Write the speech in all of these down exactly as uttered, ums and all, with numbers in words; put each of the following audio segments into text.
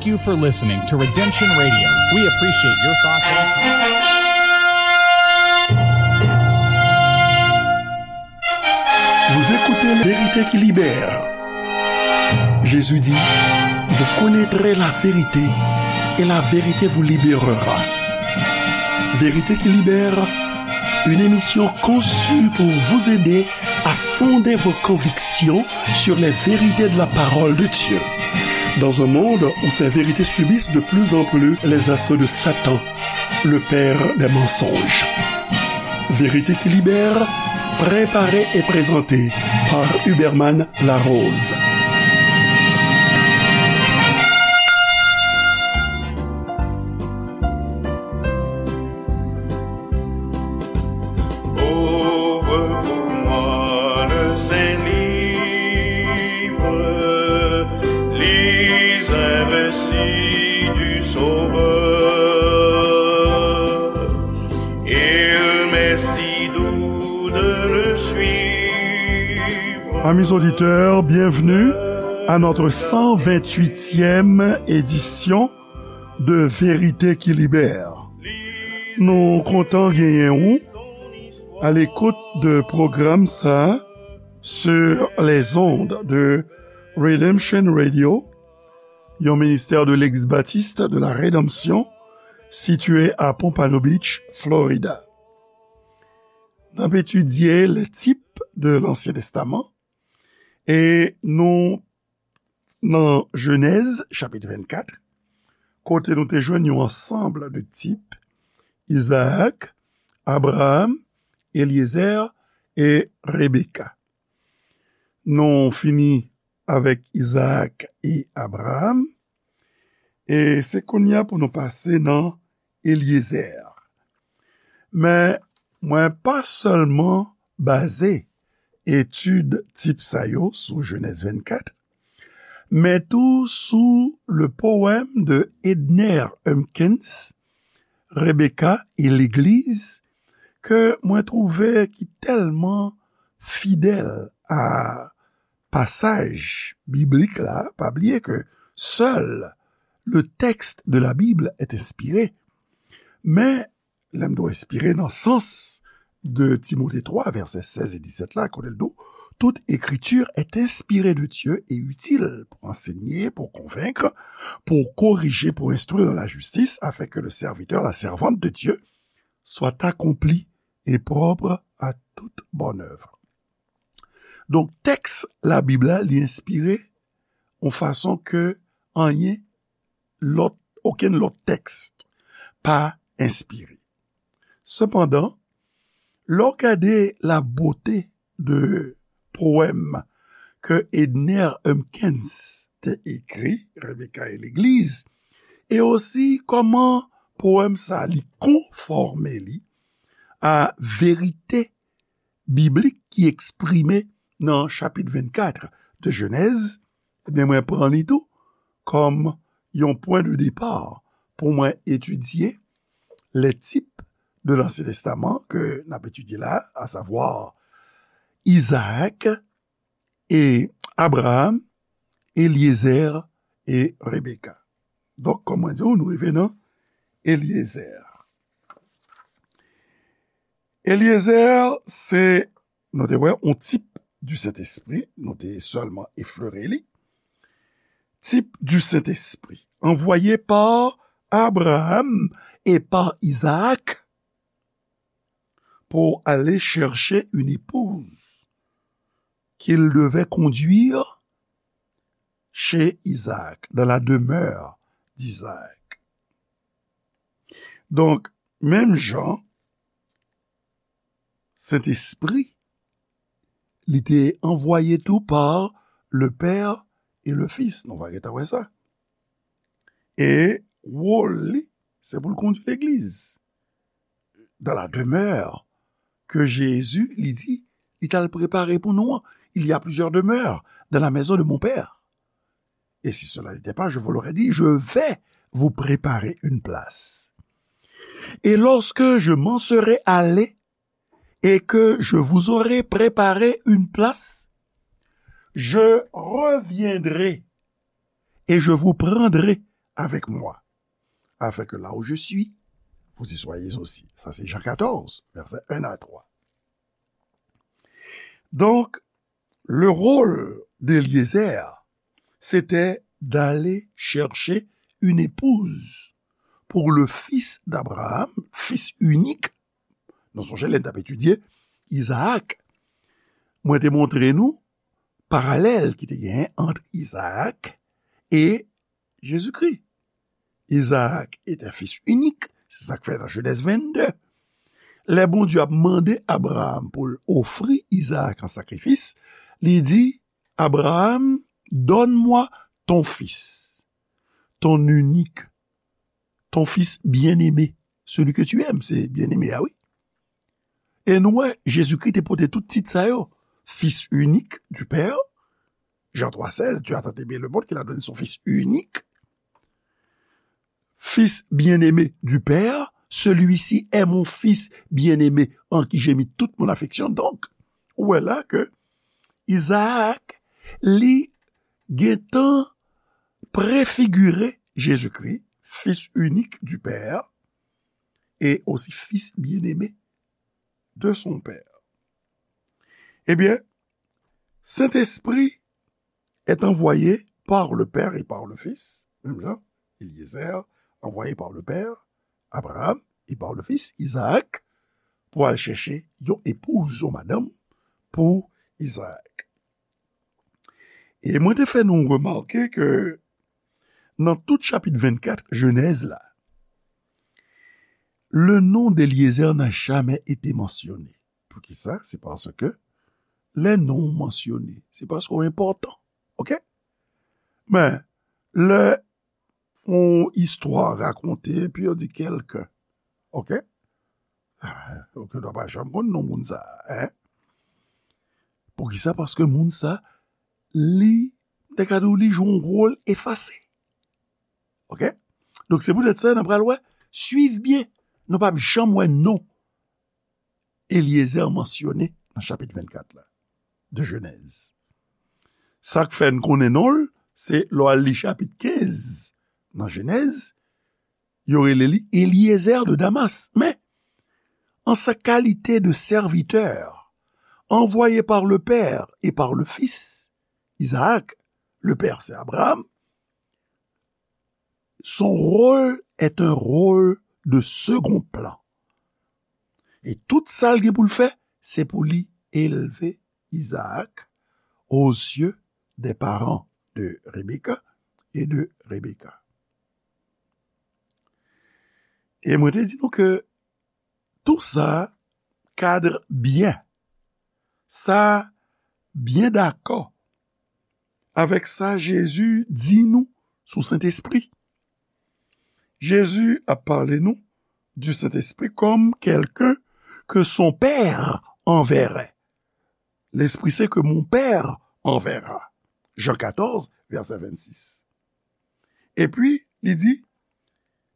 Thank you for listening to Redemption Radio. We appreciate your thoughts and comments. Vous écoutez La Vérité qui libère. Jésus dit, vous connaîtrez la vérité et la vérité vous libérera. Vérité qui libère, une émission conçue pour vous aider à fonder vos convictions sur les vérités de la parole de Dieu. Dans un monde où ces vérités subissent de plus en plus les assauts de Satan, le père des mensonges. Vérité qui libère, préparée et présentée par Huberman Larose. Ouvre pour moi le Saint-Livre, lis un récit du Sauveur. Il m'est si doux de le suivre. Amis auditeurs, bienvenue à notre cent vingt-huitième édition de Vérité qui libère. Nou kontan genyen ou à l'écoute de pwogram sa sur les ondes de Redemption Radio, yon ministère de l'Église baptiste de la Rédemption, situé à Pompano Beach, Florida. N ap etidye les types de l'Ancien Testament, e nou nan Jenèz, chapit vennkat, kote nou te jwenn yon ansanm de tip, Izaak, Abraram, Elyezè e Rebeka. Nou fini avèk Izaak e Abraram, e se kounye a pou nou pase nan Elyezè. Men, mwen pa sèlman baze etid tip sa yo sou Jenèz vennkat, men tou sou le poème de Edner Humpkins, Rebecca et l'Église, ke mwen twouve ki tèlman fidèl a pasaj biblik la. Pa bliye ke seul le texte de la Bible est inspiré. Men, lè m di w enspire nan sans de Timote twa, vèsè sèz e disèt la, kote l di w, toute écriture est inspirée de Dieu et utile pour enseigner, pour convaincre, pour corriger, pour instruire dans la justice, afin que le serviteur, la servante de Dieu, soit accompli et propre à toute bonne œuvre. Donk, tèks Labib la, li enspire yon fason ke anyen lòt, okenn lòt tèks pa enspire. Sepandan, lè w gade la beauté de powèm ke Edner Humpkins te ekri, Rebecca et l'Église, e osi kòman powèm sa li konfòme li a verite biblik ki eksprime nan chapit vennkat de Jenèz, ebyen, mwen pran li tou kòm yon pwen de depa pou mwen etidye les types de l'Ancien Testament ke n ap etidye la, à savoir Izaak e Abraram, Elyezè e Rebeka. Donk, kòm mwen di w, nou rive nan Elyezè. Elyezè, se, nou te wè, yon tip du Saint-Esprit, nou te sèlman eflere li. Type du Saint-Esprit, envoyé par Abraham et par Isaac pour aller chercher une épouse qu'il devait conduire chez Isaac, dans la demeure d'Isaac. Donk, menm jan, Sentespri, li te anvwaye tou pa le Père et le Fils. Nou va gentan wè sa. E wòl li, se pou l kondui legliz. Dans la demeure que Jésus, li di, li t al prepare pou nou an. Il y a plusieurs demeures dans la maison de mon Père. Et si cela n'était pas, je vous l'aurais dit, je vais vous préparer une place. Et lorsque je m'en serai allé et que je vous aurai préparé une place, je reviendrai et je vous prendrai avec moi, afin que là où je suis, vous y soyez aussi. Sa se Jan katòz, vèsè en a twa. Donc, le rôle d'Éliézer, c'était d'aller chercher une épouse pour le fils d'Abraham, fils unique. Nou sonje lè n t ap etidye Izaak, mwen te montre nou paralèl ki te genyen ant Izaak e Jezikri. Izaak est un fils unique, se sa k fè nan Jenèz vennde, lè Bondye ap mande Abraham pou l ofri Izaak an sakrifis, li di, Abraham, donne-moi ton fils, ton unique, ton fils bien-aimé, celui que tu aimes, se bien-aimé a, wi. E nou wè, Jezikri te pote tout tit sa yo. Fils unique du Père, Jean trois seize, Dieu a tant aimé le monde qu'il a donné son Fils unique. Fils bien-aimé du Père, celui-ci est mon Fils bien-aimé en qui j'ai mis toute mon affection. Donk, ou wè la ke Izaak, li gentan prefigire Jezikri, Fils unique du Père, et aussi Fils bien-aimé de son Père. Ebyen, Sentespri est envoyé par le Père et par le Fils, menm jan, Éliézer, envoyé par le Père, Abraham, et par le Fils, Izaak, pou al chèche yon epouz, yon madanm pou Izaak. E mwen te fè nou remake ke nan tout chapit vennkat Jenèz la, le nom d'Éliézer n'a jamais été mentionné. Poukisa? Se paske lè non w mansyone, se paske w enpòtan. Oke? Men, lè yon istwa rakonte, epi yo di kèlke, oke? Oke, nou pa janm konn non moun sa a, en? Poukisa? Paske moun sa, li, m te ka di w, li jwe yon wòl efase. Oke? Donk, se poutèt sa, n ap pral wè, swiv byen, nou p ap janm wè non Eliezer mansyone nan chapit vennkat la, de Jenèz. Sa k fè n konnen non l, se lè w al li chapit kenz nan Jenèz, yo rele li Eliezer de Damas. Men, en sa qualité de serviteur, envoyé par le Père et par le Fils, Isaac, le Père c'est Abraham, son rôle est un rôle de second plan. E tout sa l gen pou l fè, se pou li elve Isaac aux yeux des parents de Rebecca et de Rebecca. E mwen te di nou ke tou sa kadre byen. Sa byen dakò avèk sa Jezi di nou sou Sentespri. Jezi ap pale nou du Saint-Esprit comme quelqu'un que son Père enverrait. L'Esprit Saint que mon Père enverra. Jean quatorze, verset vingt-six. Epi, li di,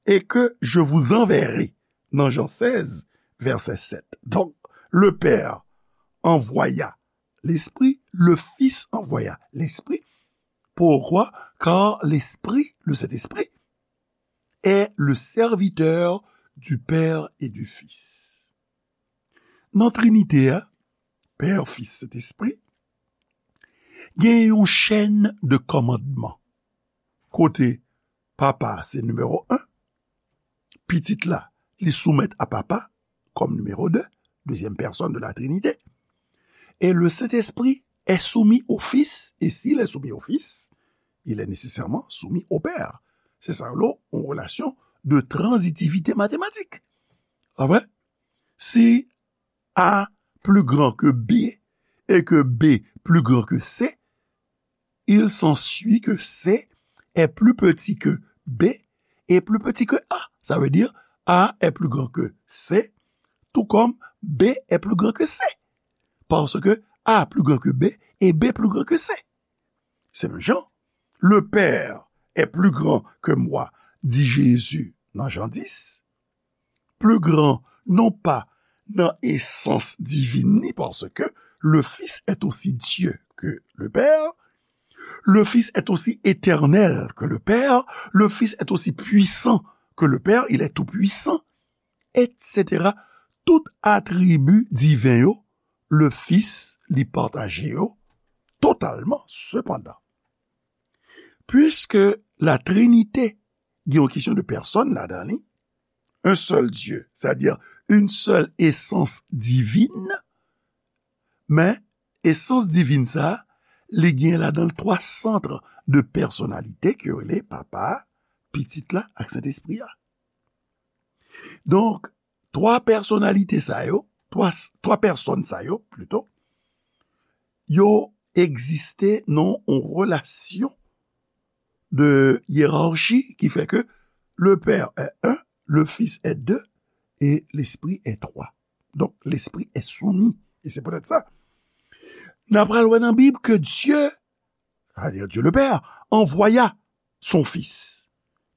et que je vous enverrai, nan Jean seize, verset sept. Donc, le Père envoya l'Esprit, le Fils envoya l'Esprit. Pourquoi? Car l'Esprit, le Saint-Esprit, est le serviteur du Père et du Fils. Nan Trinite a, Pè, Fis, Sentespri, gen yon chèn de kòmandman. Kote Papa se nimewo en, Pitit la, li soumèt a Papa kòm nimewo de, deuxième personne de la Trinité. Et le Saint-Esprit est soumis au Fils, et s'il est soumis au Fils, il est nécessairement soumis au Père. Se sa yo rele yon relasyon de transitivité mathématique. Amen. Si A plus grand que B et que B plus grand que C, il s'ensuit que C est plus petit que B et plus petit que A. Ça veut dire A est plus grand que C, tout comme B est plus grand que C. Parce que A plus grand que B et B plus grand que C. Se menm jan, le Père est plus grand que moi, dit Jésus dans Jean dix. Plus grand, non pas nan esans divin li, parce que le Fils est aussi Dieu que le Père, Le Fils est aussi éternel que le Père, le Fils est aussi puissant que le Père, il est tout-puissant, et cetera. Tout atribi diven yo, le Fils li pataje yo totalman. Sepandan, puiske la Trinite gen yon kesyon de pèsòn ladan li, un seul Dieu, c'est-à-dire une seule essence divine, men esans divin sa, li gen ladan l twa sant de pèsonalite ke yo rele Papa, Pitit la ak Sentespri a. Donk, twa pèsonalite sa yo, twa, twa pèsòn sa yo, plito, yo egziste nan yon relasyon de yerachi ki fè ke le Père est un, le Fils est deux et l'Esprit est trois. Donc, l'Esprit est soumis. Et c'est peut-être ça. N ap pral wè nan Bib ke Dye, c'est-à-dire Dieu le Père, envoya son Fils.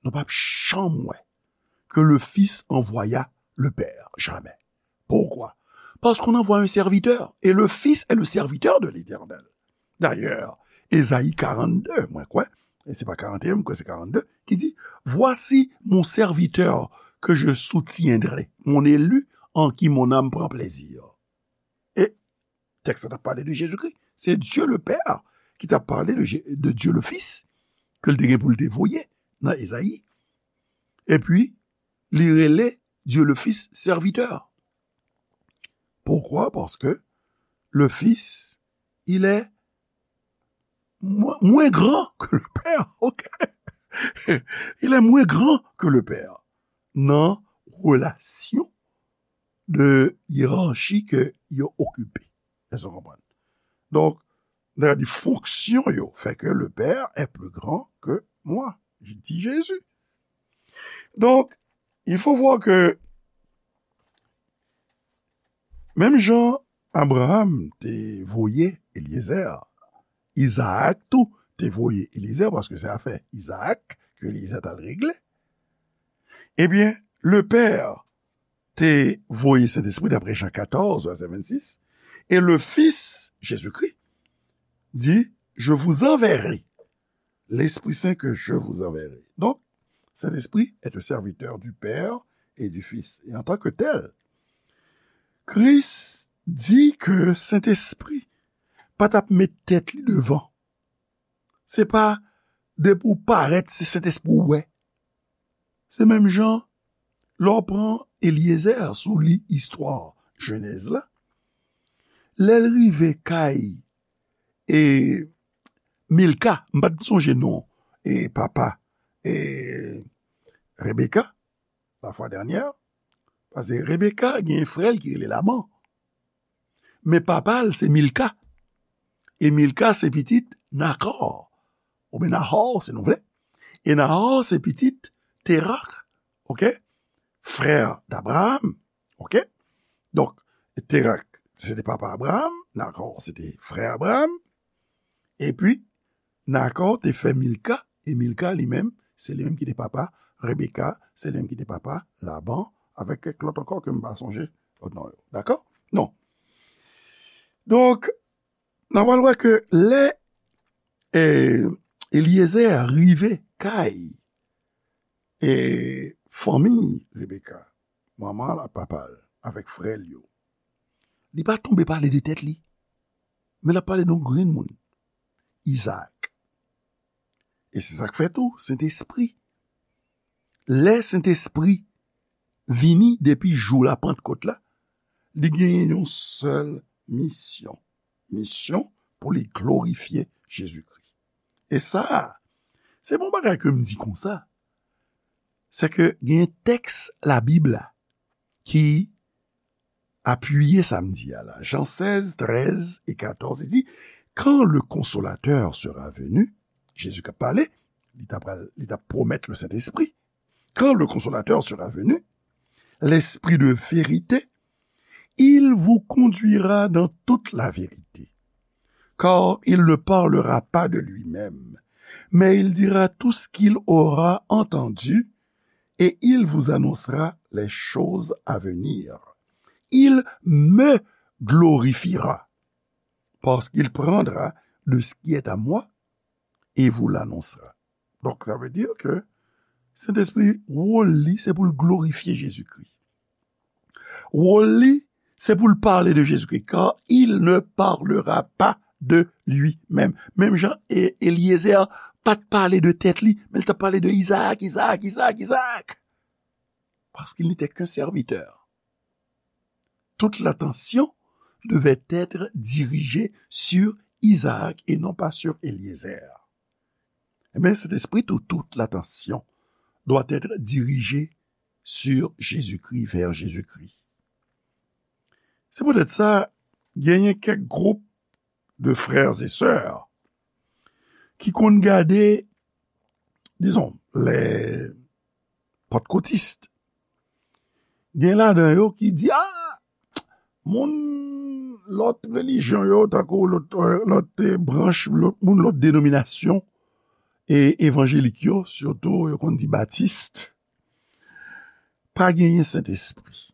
Nou p ap janm wè que le Fils envoya le Père. Jamais. Pourquoi? Parce qu'on envoie un serviteur. Et le Fils est le serviteur de l'Éternel. D'ailleurs, Ésaïe quarante-deux, mwen kwè, e se pa quarante et un, mwen kwè se quarante-deux, ki di, Voici mon serviteur que je soutiendrai, mon élu en qui mon âme prend plaisir. E tèks la t ap pale de Jezikri. Se Dye le Pè ki t ap pale de, Je- de Dye le Fis, ke l te gen pou l te voye nan Ezayi. Epi, li rele Dye le Fis sèvitè. Poukwa? Paske le Fis, il est moins, moins grand que le Père, ok? Il est moins grand que le Père. Nan relasyon de yerachi ke yo okipe. Èske w konprann? Donk, nan di fonksyon yo, fait que le Père est plus grand que moi, di Jezi. Donk, il faut voir que menm jan Abraham te voye Eliezer, Izaak tou te voye Eliezer, paske se afè Izaak ke Eliezer t al regle. Ebyen, le Père te voye Sentespri, daprè Jan katòz, vèsè vennsis, e le Fis, Jezikri, di, Je vous enverrai l'Esprit Saint que je vous enverrai. Donc, Saint-Esprit est un serviteur du Père et du Fils. Et en tant que tel, Kris di ke Sentespri pa t ap met tèt li devan. Se pa depi w parèt, se Sentespri w wè. Se menm jan, lè w pran Eliezer, si w li istwa Jenèz la, lè l rive kay e Milka, m pa t sonje non, e papa e Rebeka, la fwa dènyè, paske Rebeka gen frè l ki rele Laban. Men papa l se Milka. E Milka se pitit Nakò. Oubyen Nahò, si nou vle. E Nahò se pitit Terak, ok? Frè d'Abraham, ok? Donk, Terak, se te papa Abraham, Nakò, se te frè Abraham. Epi, Nakò te fè Milka, e Milka li menm, se li menm ki te papa Rebeka, se li menm ki te papa Laban, avèk kèk lòt ankò ke m pa sonje lòt non yo. Dakò? Non. Donk, n a pral wè ke lè, eh, Eliezer rive kay, eh, fanmi Rebeka, manman l ak papa l, avèk frè l yo, li pa tonbe pale de tèt li, men l ap pale de yon grenn moun, Izaak. E se sa k fè tou, Sentespri. Lè Sentespri vini depi jou la Pantkòt la, li genyen yon sèl misyon. Misyon pou li glorifye Jezikri. E sa, se pa yon bagay ke m di konsa. Se ke gen tèks Labib la ki apiye sa m di a la. Jan sèz, trèz e katòz, li di, Quand le Consolateur sera venu, Jezi k ap pale, li t ap, li t ap pwomèt le Sentespri. Quand le Consolateur sera venu, l'Esprit de vérité, il vous conduira dans toute la vérité. Car il ne parlera pas de lui-même, mais il dira tout ce qu'il aura entendu et il vous annoncera les choses à venir. Il me glorifiera, parce qu'il prendra de ce qui est à moi et vous l'annoncera. Donk, sa vle di ke Sentespri, wòl li, se pou l glorifye Jezikri. Wòl li, se pou l pale de Jezikri, car il ne parlera pas de lui-même. Menm jan E-, Eliezer pa t pale de tèt li, men l t ap pale de Izaak, Izaak, Izaak, Izaak. Parce qu'il n'était qu'un serviteur. Toute l'attention devait être dirigée sur Isaac et non pas sur Eliezer. Eh bien, cet esprit où toute l'attention doit être dirigée sur Jésus-Christ, vers Jésus-Christ. Se poutèt sa, genyen kèk gwoup de frères et sœurs ki konn gade, dizon, les pentecôtistes. Gen ladan yo ki di, ah, moun lòt relijyon yo, tankou lòt, lòt, eh, branch, lòt, moun lòt denominasyon, e evanjelik yo, sitou yo konn di batis, pa genyen Sentespri.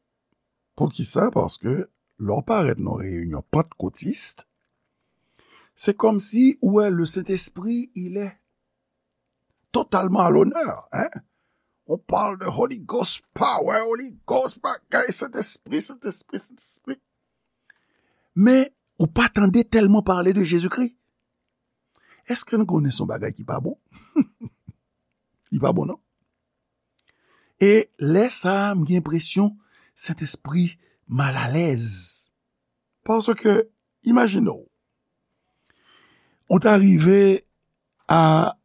Poukisa? Paske lè w parèt nan reyinyon pantkòtis, se kòmsi ou wè le Saint-Esprit, il est totalement à l'honneur, hein? On parle de Holy Ghost power, Holy Ghost bagay, Sentespri, Sentespri, Sentespri. Men, ou pa tande tèlman pale de Jezikri. Èske nou konnen se yon bagay ki pa bon? Li pa bon, non? E lè sa a, m gen enpresyon Sentespri malalèz. Paske, imajine w, ou ta rive a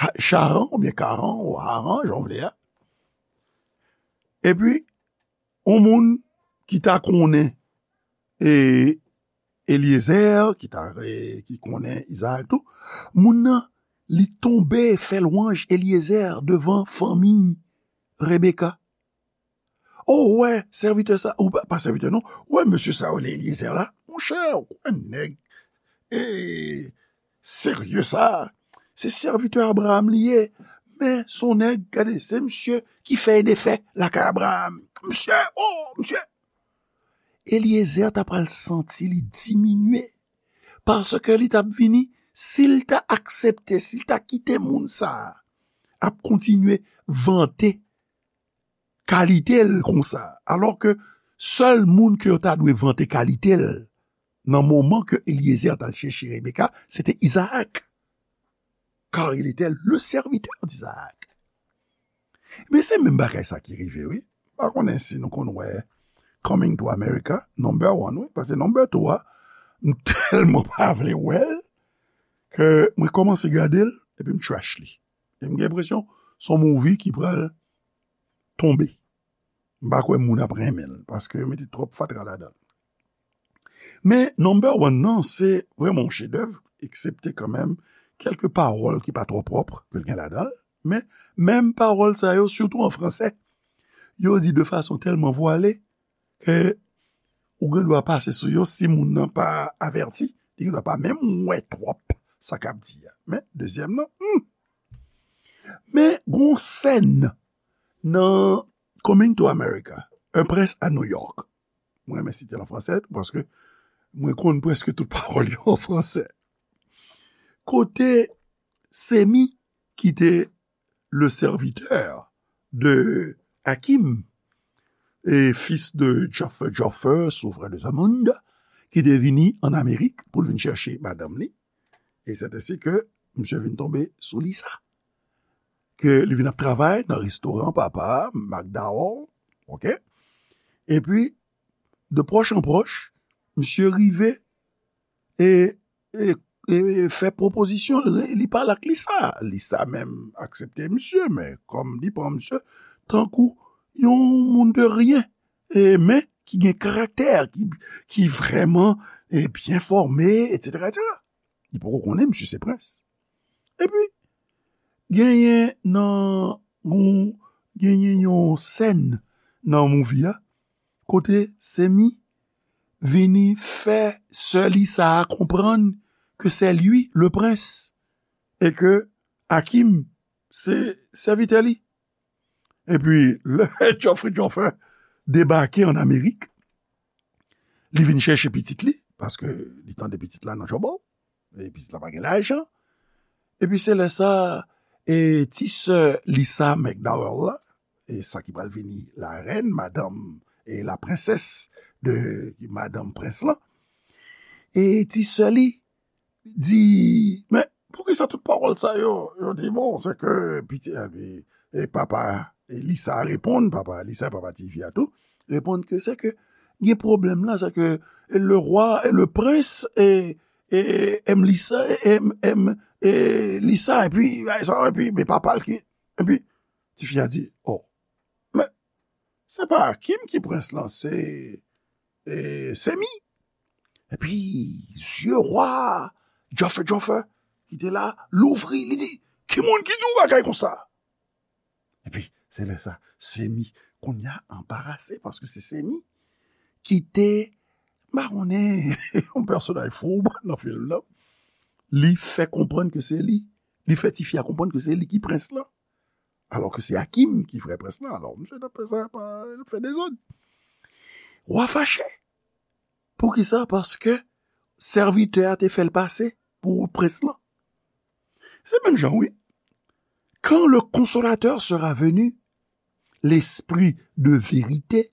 Ha-, Charan, oubyen Karan, ou Haran, jan w vle a. Epi, yon moun ki ta konnen, e, Eliezer, ki ta, e, ki konnen Izaak tou, moun nan, li tonbe fè lwanj Eliezer devan fanmi Rebeka. Oh, ou wè, sèvitè sa, ou pa, pa sèvitè non, ou wè mesye sa yo, Eliezer la, monchè, ou kwè nèg, e, serye sa, se sèvitè Abraham li ye, men se yon nèg, gade, se misye ki fè e defè lakay Abraham. Misye, oh, misye! Eliezer ta pral santi li diminye, paske li t ap vini, si l ta aksepte, si l ta kite moun sa a ap kontinye vante kalite l konsa, alò ke sèl moun ke yo ta dwe vante kalite l nan moman ke Eliezer t al chèche Rebeka, se te Izaak. Car il était le serviteur d'Isaac. Men se menm bagay sa ki rive, wi. M pa konnen si nou konn wè Coming to America, number one, wi. Paske number two a, m tèlman pa vle wè l, ke mwen kòmanse gade l, epi m trash li. E m gen enpresyon, se yon movie ki pral tonbe. M pa kwè moun ap renmen l, paske yo mete twòp fatra ladan l. Men, number one nan, se vrèman yon chedèv, eksepte kanmenm kèlke pawòl ki pa twò pwòp ke l gen ladan l. Men, menm pawòl sa yo, sitou an fransè, yo di de fason tèlman vwale ke ou gen dwa pase sou yo si moun nan pa avèti, li gen dwa pa menm wè twòp sa k ap di a. Men, dezyèm nan, hmm. Men, gon sèn nan Coming to America, Un prince à New York. Mwen renmen site l an fransè, paske mwen konn prèske tout pawòl yo an fransè. Kote Semi, ki te le serviteur de Hakim, et fils de Joffer, Joffer, souverain de Zamunda, ki te vini an Amerik pou l vin chèche madanm li. E sèt ensi ke misye vin tonbe sou Lisa. Ke li vin ap travay nan restoran papa McDowell, oke? Epi, de pwòch an pwòch, misye rive e, e, e fè pwopozisyon, li, li pale ak Lisa. Lisa menm aksepte misye, men kòm li pran misye tankou yon moun de ryen, e, men ki gen karaktè, ki, ki vrèman, e, byen fòme, etsetera, etsetera. Li poko konnen misye se prens. Epi, genyen nan yon, genyen yon sèn nan movie a, kote Semi vini fè sè Lisa a konprann ke c'est lui le prince e ke Hakim se sèvitè li. Epi, lè Joffer Joffer debake an Amerik, li vin chèche pitit li, paske li tande pitit la nan Jòbò, e pitit la pa gen lajan, Epi se lè sa, e, ti sè Lisa McDowell la, e sa ki pral vini larèn, madanm, e la prensès de madanm prens lan, e ti sè li di, men poukisa tout pawòl sa yo? Yo di, bon, se ke piti, epi, e papa, e Lisa reponn, papa Lisa, papa tifi a tou, reponn ke se ke gen pwoblèm la, se ke le roi, e le prince, e, e, aime Lisa, e, aime, aime, e Lisa, epi, bagay sa, epi, men papa l ki, epi, tifi a di, oh, men, se pa Akim ki prens lan, se, e, Semi. Epi, zye rwa, Joffe, Joffe, ki te la, louvri, li di, ki moun ki di w bagay konsa? Epi, se lè sa, Semi, kounye a anbarase, paske se Semi ki te, m pa konnen, yon pèsonaj foub nan fim nan. Li fè konprann ke se li, li fè tifi a konprann ke se li ki prens lan. Alò ke se Akim ki vrè prens lan. Alò, misye t ap fè sa, pa, l ap fè dezòd. Wa fache. Poukisa? Paske sèvitè a te fè l pase pou prens lan. Se menm jan, wi. Quand le Consolateur sera venu, l'Esprit de vérité,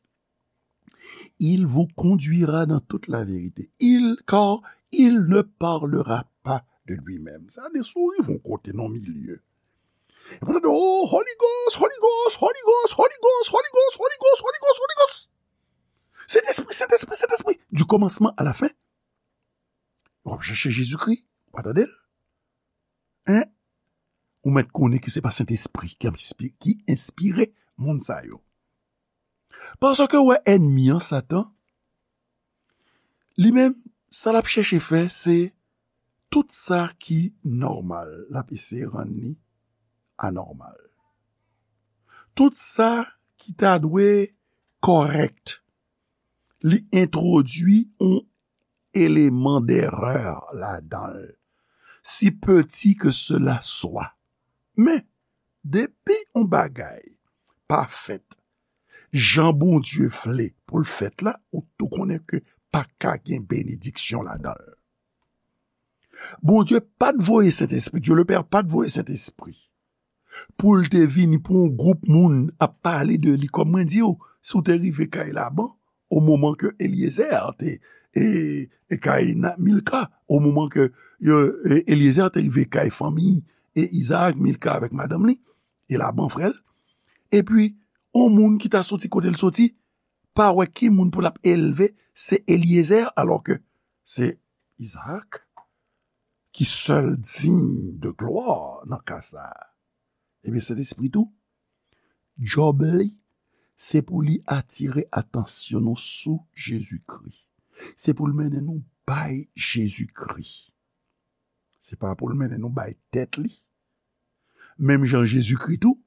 il vous conduira dans toute la vérité. Il, car il ne parlera pas de lui-même. Sa de souri yon kote nan milye. E pou tande, oh, Holy Ghost, Holy Ghost, Holy Ghost, Holy Ghost, Holy Ghost, Holy Ghost, Holy Ghost, Holy Ghost. Sentespri, Sentespri, Sentespri. Du commencement à la fin. W ap chèche Jezikri, w pa tande l. Hein? Ou mèt konnen ke se pa Sentespri ki enspi-, ki enspire moun sa yo. Paske w wè ènmi an, Satan, li menm, sa l ap chèche fè, se tout sa ki nòmal, l ap eseye rann li anòmal. Tout sa ki ta dwe kòrèk, li entwodui yon eleman derè ladan l, si peti ke sela swa. Men, depi yon bagay pa fèt jan Bondye vle pou l fèt la, ou tou konnen ke pa ka gen benediksyon ladan l. Bondye pa t voye Sentespri, Dye le Pè pa t voye Sentespri pou l te vini pou yon gwoup moun ap pale de li. Kòm mwen di w, si w te rive kay Laban, o moman ke Elyezer te, e, e kay na-, Milka, o moman ke yo, e, Elyezer te rive kay fanmi, e Izaak, Milka avèk madanm li, e Laban frè l, epi yon moun ki ta soti kote l soti, pa wè ki moun pou l ap elve, se Elyezer, alò ke se Izaak ki sèl diy de glwa nan ka sa a. Ebyen, Sentespri tou, djòb li, se pou li atire atansyon nou sou Jezikri. Se pou l mennen nou bay Jezikri. Se pa pou l mennen nou bay tèt li. Menm jan Jezikri tou,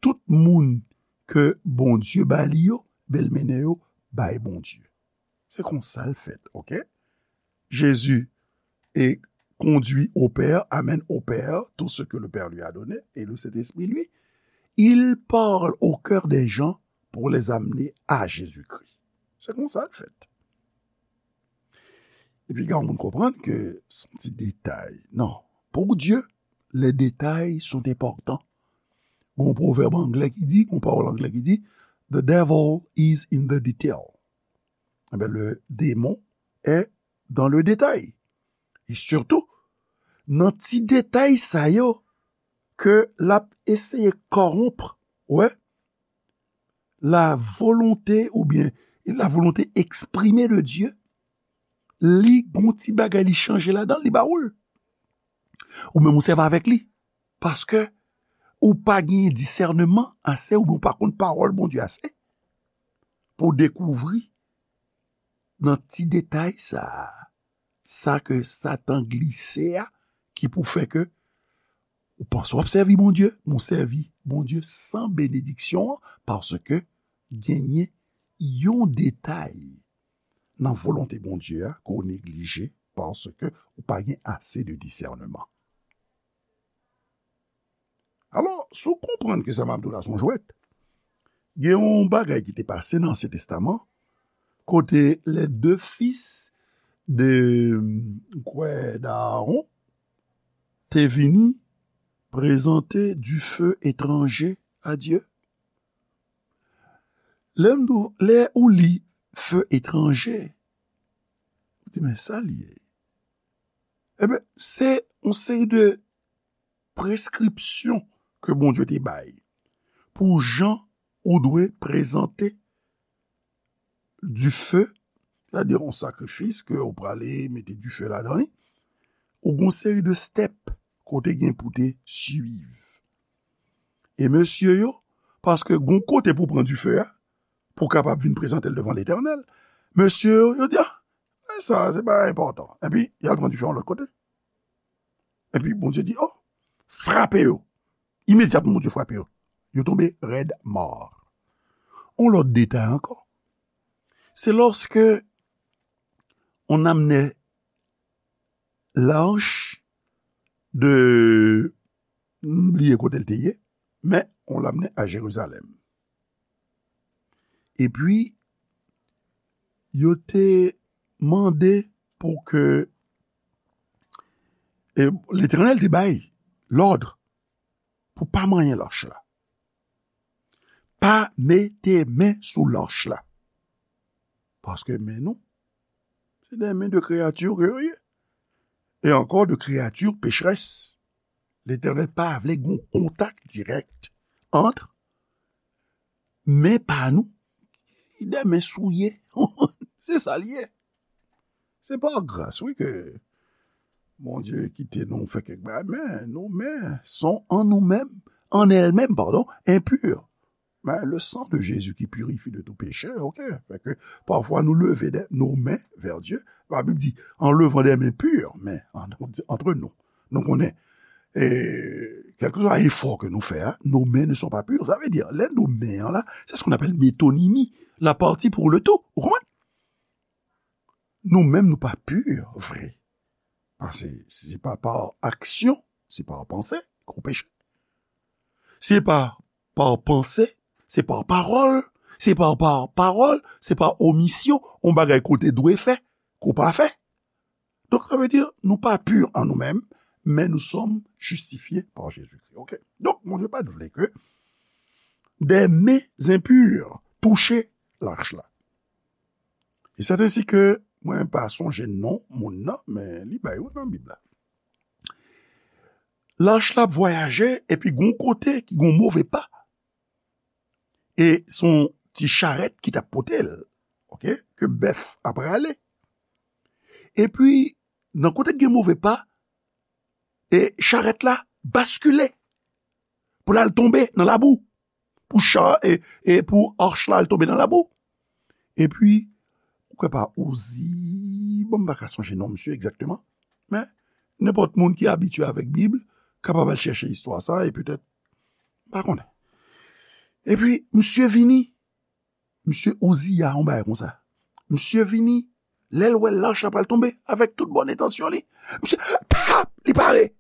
tout moun ke Bondye ba li yo, ben l mennen yo bay Bondye. Se konsa l fèt, oke? Jésus est conduit au Père, amène au Père tout ce que le Père lui a donné, et le Saint-Esprit, lui, il parle au cœur des gens pour les amener à Jésus-Christ. Se konsa l fèt. Epi gen moun konprann ke se yon ti detay. Non. Pour Dieu, les détails sont importants. Gon pwovèb anglè ki di, gon pawòl anglè ki di, the devil is in the detail. Ebyen, le démon est dans le détail. E sitou, nan ti detay sa yo, ke l ap eseye kòwonp, wè, la volonté oubyen la volonté exprimée de Dieu, li gon ti bagay li chanje ladan l, li ba ou l. Ou menm ou sèvi avèk li. Paske ou pa gen disèneman ase, oubyen ou pa konn pawòl Bondye ase, pou w dekouvri nan ti detay sa a, sa ke Satan glise a, ki pou fè ke ou panse w ap sèvi Bondye, men w sèvi Bondye san benediksyon an, paske genyen yon detay nan volonte Bondye a ke w neglije, paske ou pa gen ase de disèneman. Alò, si w konprann ke sa m ap di w la se yon jwèt, gen yon bagay ki te pase nan Ansyen Testaman, kote les deux fils de, m kwè, d'Aaron te vini Prezante dife etranje a Dye. Lè m di w, lè ou li fe etranje, ou di, "Men sa l ye." Ebyen, se yon seri de preskripsyon ke Bondye te bay pou jan ou dwe prezante dife, sètadi yon sakrifis ke ou prale mete dife ladan li, ou gon seri de step kote gen pou te swiv. E mesye yo, paske gon kote pou pran dife a, pou kapab vin prezante l devan Letènèl, mesye yo, yo di, "Ah, men sa, se pa enpòtan." Epi, y al pran dife yon lòt kote. Epi, Bondye di, "Oh, frape yo." Imedyatman, Bondye frape yo. Yo tonbe rèd mò. On lòt detay ankò. Se lòske on amne lach de, m bliye kote l te ye, men on l amne a Jerizalèm. Epi, yo te mande pou ke, e, Letènèl te bay lòd pou pa manyen lach la. Pa mete men sou lach la. Paske men nou, se de men de kreyati ke yo ye. E ankò de kreyati pecherès. Letènèl pa vle gon kontak dirèk ant men pa nou, de men souye. Se sa l ye. Se pa gras, wi, ke Bondye kite nou fè kèk bagay, men nos mains sont en nous-mêmes, en elles-mêmes, pardon, impures. Mais le sang de Jésus qui purifie de tout péché, ok. Fait que parfois nous lever des, nos mains vers Dieu, la Bible dit, en levant des mains pures, mais en, entre nous. Nou konnen, e, kèlkeswa efò ke nou fè a, nos mains ne sont pas pures. Sa vle di, lè nou men an la, c'est ce qu'on appelle métonymie, la partie pour le tout. Ou konprann? Nou menm, nou pa pur vre. Paske si se pa pa aksyon, se pa panse, gwo peche. Se pa pa panse, se pa pawòl, se pa pa pawòl, se pa omisyon, on bagay ke w te dwe fè, ke w pa fè. Donk, sa vle di, nou pa pur an nou menm, men nous sommes justifiés par Jésus-Christ. Ok? Donk, Bondye pa t vle ke des mains impures touche lach la. E c'est ainsi que, mwen pa sonje non moun nan, men li bay yo nan Bib la. Lach la ap vwayaje, epi gon kote ki gon move pa. E se yon ti charèt ki t ap pote l, ok, ke bèf ap rale. Epi, nan kote ki gen move pa, e charèt la baskile pou l al tonbe nan labou, pou cha, e, e pou ach la al tonbe nan labou. Epi, ou kwè pa Ozi, bon, m pa ka sonje non misye egzakteman, men nenpòt moun ki abitye avèk Bib kapab al chèche istwa sa, e petèt, m pa konnen. Epi, misye vini, misye Oziya, yon bagay konsa. Misye vini, lè l wè lach la pral tonbe, avèk tout bòn entansyon li, misye, pap, li pare.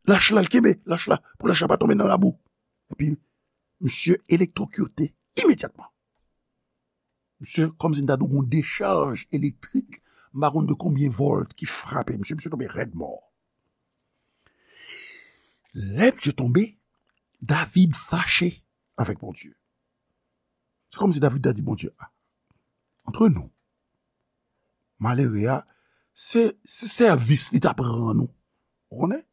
Lach la, l kenbe lach la, pou lach la pa tonbe nan labou. Epi, misye elektwokite imedyatman. Misye, kòmsi m ta di w gon dechaj elektrik, m pa konn de konbyen vòlt ki frape misye, misye tonbe rèd mò. Lè misye tonbe, David fache avèk Bondye. Se kòmsi David ta di Bondye, "Ah, antre nou, malere a, se, se sèvis li t ap rann ou." Ou konnen?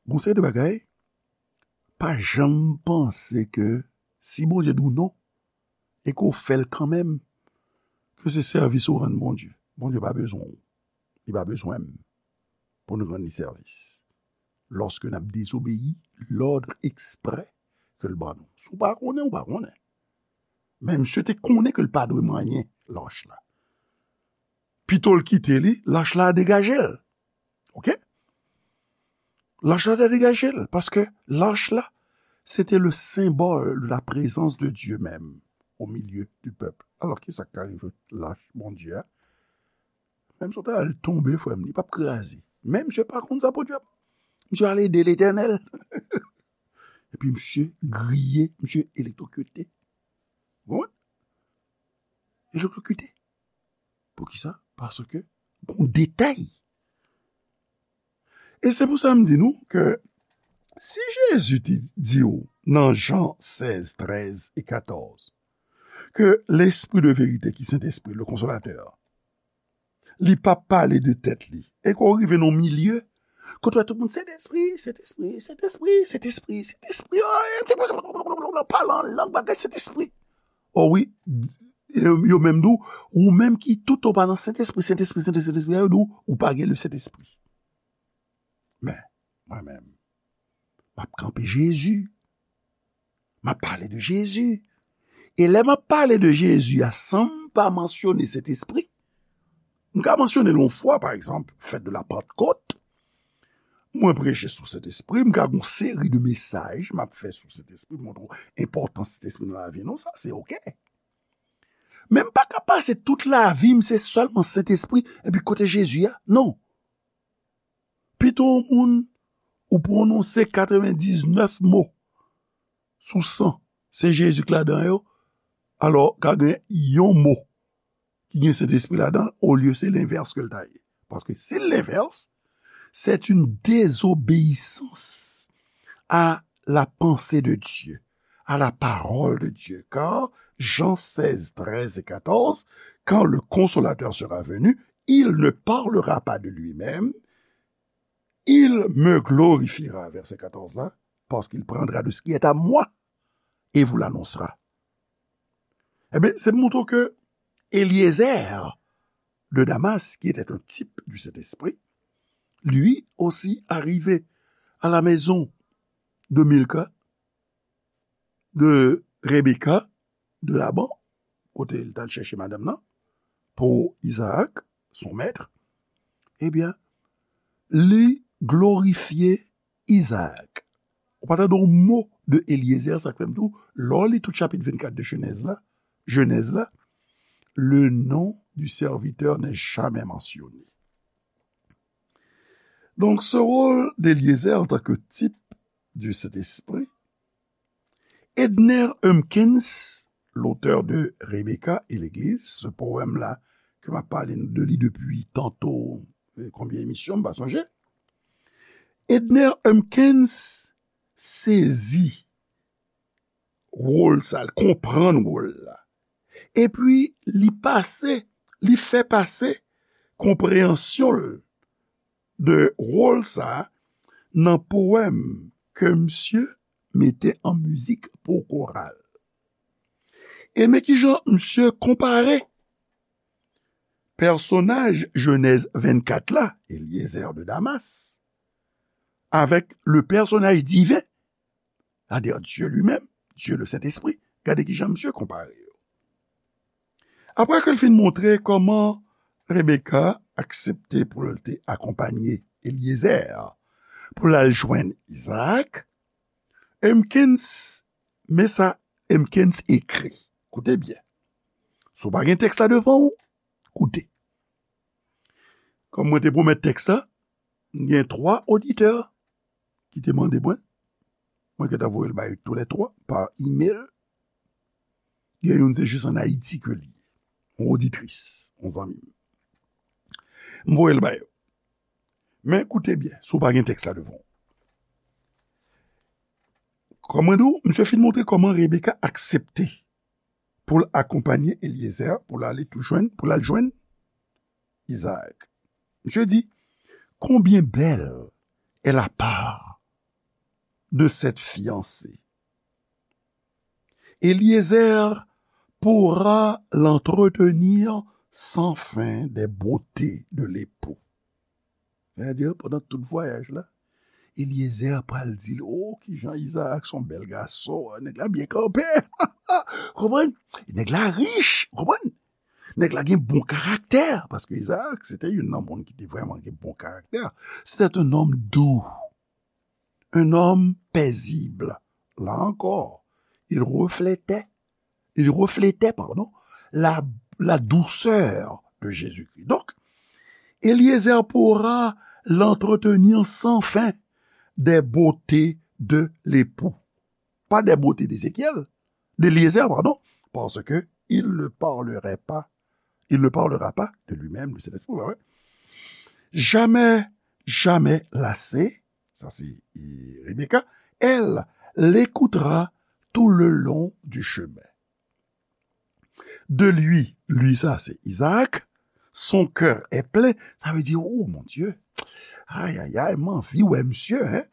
Gon seri de bagay, pa janm panse ke si Bondye di w non, e ke w fè l kanmenm, ke se sèvis ou rann Bondye. Bondye pa bezwen w. Li pa bezwen m pou n rann li sèvis. Lòske n ap dezobeyi lòd eksprè ke l ban nou. Si w pa konnen, ou pa konnen. Men misye te konnen ke l pa dwe manyen lach la. Pito l kite li, lach la degaje l. Ok? Lach la te degaje l, paske lach la, se te le symbole de la présence de Dieu même au milieu du peuple. Alò, ki sa k ka rive lach Bondye a? Menm si w ta al tonbe, frè m, li p ap kraze. Men misye pa konn sa pou dyab. Misye al ede Letènèl. Epi misye griye, misye elektwokite. Bon? Elektwokite. Poukisa? Paske gon detay. E se pou sa m di nou ke Si Jezi te di w nan Jan sèz, trèz e katòz, ke Lespri de verite, ki Sentespri, le Konsolatè, li p ap pale de tèt li. E ke w rive nan milye, kote w wè tout moun, Sentespri, Sentespri, Sentespri, Sentespri, Sentespri, pale an lang, bagay Sentespri. O wi, yo, yo menm di w, ou menm ki tout ou pa nan Sentespri, Sentespri, Sentespri, Sentespri, yo di w, ou pa gen le Sentespri. Men, mwen menm, m ap kanpe Jezi. M ap pale de Jezi. E lè m ap pale de Jezi a, san m pa mansyone Sentespri, m ka mansyone l yon fwa, pa egzanp, fèt de la Pantkot. Mwen preche sou Sentespri, m ka gen yon seri de mesaj m ap fè sou Sentespri, montre w enpòtans Sentespri nan lavi nou, sa se oke. Men m pa ka pase tout lavi m, se sèlman Sentespri, epi kote Jezi a? Non. Pito yon moun, ou pwononse katrevendiznèf mo sou san, se Jezi k ladan yo, alò, ka gen yon mo ki gen Sentespri ladan l, olye se lenvès ke l ta ye. Paske si l lenvès, c'est une désobéissance à la pensée de Dieu, à la parole de Dieu. Car Jean seize, treize et quatorze, quand le Consolateur sera venu, il ne parlera pas de lui-même, il me glorifiera. Vèsè katòz la, parce qu'il prendra de ce qui est à moi et vous l'annoncera. Ebyen, se pou montre ke Eliezer de Damas, qui était un type du Saint-Esprit, lui aussi arrivé à la maison de Milka, de Rebecca, de Laban, kote l t al chèche madanm nan, pou Izaak, son mèt, ebyen, li glorifye Izaak. Ou pa tande yon mo de Eliezer, sa k fè m di w, lè w li tout chapit vennkat de Jenèz la, Jenèz la, le nom du serviteur n'est jamais mentionné. Donc, ce rôle d'Eliezer en tant que type du Saint-Esprit, Edner Humpkins, l'auteur de Rebecca et l'Église, ce poème-là, ke m ap pale de li depi tanto, eh, konbyen emisyon, m pa sonje. Edner Humpkins sezi wòl sa, l konprann wòl la. Epi, li pase, li fè pase konpreyansyon l de wòl sa nan powèm ke misye mete an mizik pou koral. E men kijan misye konpare pèsonaj Jenèz vennkat la, Eliezer de Damas, avèk le pèsonaj diven, c'est-à-dire Dieu lui-même, Dieu le Saint-Esprit. Gade kijan misye konpare yo. Apre ke l fin montre kòman Rebecca aksepte pou l te akonpanye Eliezer pou l al jwenn Izaak, Humpkins, men sa Humpkins ekri. Koute byen. Si w pa gen tèks la devan w, koute. Kòm mwen te pwomèt tèks la, m gen twa oditè ki te mande mwen. Mwen gentan voye l ba yo toulètwa pa email. Gen youn se jis ann Ayiti ke li ye. Yon oditris, yon zanmi m. M voye l ba yo. Men koute byen, si w pa gen tèks la devan w. Kòm mwen di w, misye fin montre kòman Rebecca aksepte pou l akonpanye Eliezer, pou l ale tou jwenn, pou l al jwenn Izaak. Misye di, combien belle est la part de cette fiancée. Eliezer pourra l'entretenir sans fin des beautés de l'époux. Sètadi, pandan tout vwayaj la, Eliezer pral di l, o, kijan Izaak se yon bèl gason, nèg la byen kanpe. Konprann? Nèg la rich, konprann? Nèg la gen bon karaktè, paske Izaak, se te youn nan moun ki te vrèman gen bon karaktè. C'était un homme doux, un homme paisible. Là encore, il reflétait, il reflétait, pardon, la, la douceur de Jésus-Christ. Donc, Eliezer pourra l'entretenir sans fin des beautés de l'époux. Pas des beautés d'Ézéchiel, d'Eliezer, pardon, parce que il ne parlerait pas, il ne parlera pas de lui-même, de cet esprit, ouais, ouais. Jamais, jamais lassé, sa se e, Rebecca, elle l'écoutera tout le long du chemin. De lui, lui sa se Isaac, son cœur est plein, sa vle di, oh mon Dieu, ay ay ay, m anvi wè misye, hein,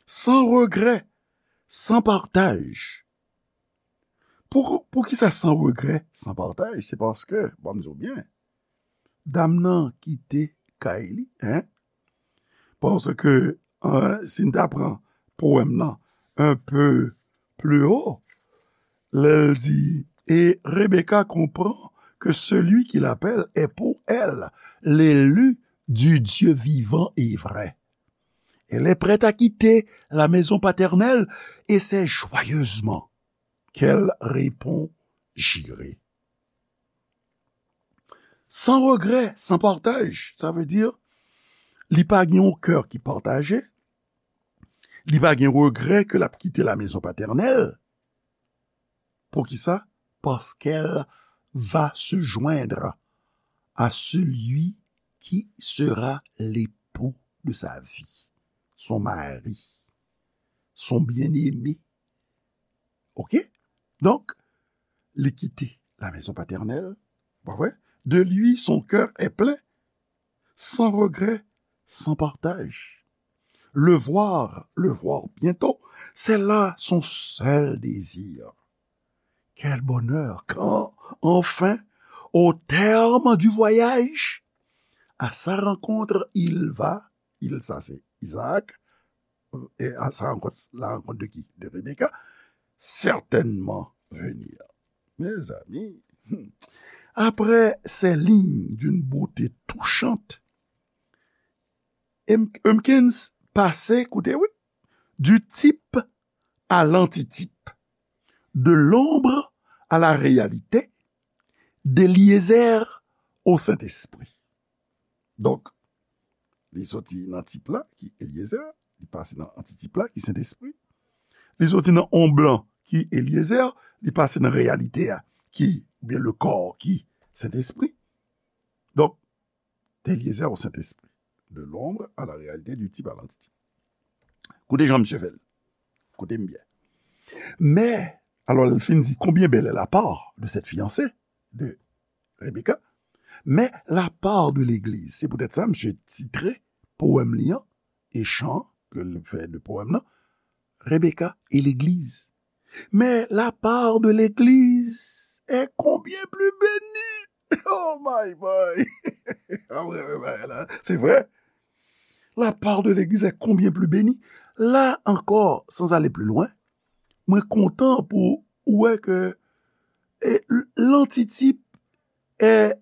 sans regret, sans partage. Pou, pou ki sa sans regret, sans partage? Se paske, bon, m di w byen, dam nan kite kay li, hein? Paske, euh, si n ta pran powèm nan un peu plus haut, lè l di, et Rebecca comprend que celui qui l'appelle est pour elle l'élu du Dieu vivant et vrai. Elle est prête à quitter la maison paternelle et c'est joyeusement qu'elle répond, j'irai. Sans regret, sans partage, sa vle di, li pa gen yon kè ki pataje, li pa gen regrè ke l ap kite la maison paternelle. Poukisa? Parce qu'elle va se joindre à celui qui sera l'époux de sa vie, son mari, son bien-aimé. Ok? Donk, li kite la maison paternelle, pa vre? De lui, son cœur est plein, sans regret, sans partage. Le voir, le voir bientôt, c'est là son seul désir. Quel bonheur quand, enfin, au terme du voyage, à sa rencontre, il va, il, ça c'est Isaac, et à sa rencontre, la rencontre de qui? De Rebecca, certainement venir. Mes amis, hmm, après ces lignes d'une beauté touchante, Hopkins pase, koute, wi, du type à l'antitype, de l'ombre à la réalité, d'Éliézer au Saint-Esprit. Donk, li soti nan tip la, ki Eliezer, li pase nan antitip la, ki Sentespri. Li soti nan onb lan, ki Eliezer, li pase nan reyalite a, ki, oubyen le corps, ki Sentespri. Donk, d'Éliézer au Saint-Esprit, de l'ombre à la réalité, du type à l'antitype. Koute jan misye fè l. Koute m byen. Mais, alors, il finit dit, combien belle est la part de cette fiancée, de Rebecca, mais la part de l'église. Se poutèt sa, misye titre powèm li an, e chan ke l fè de powèm nan, Rebecca et l'église. Mais la part de l'église est combien plus bénie. Oh my boy. Ah ouais, ouais, ouais, la, c'est vrai. La part de l'église est combien plus bénie. La encore, sans aller plus loin, mwen kontan pou ou wè ke e, l-, lantitip e,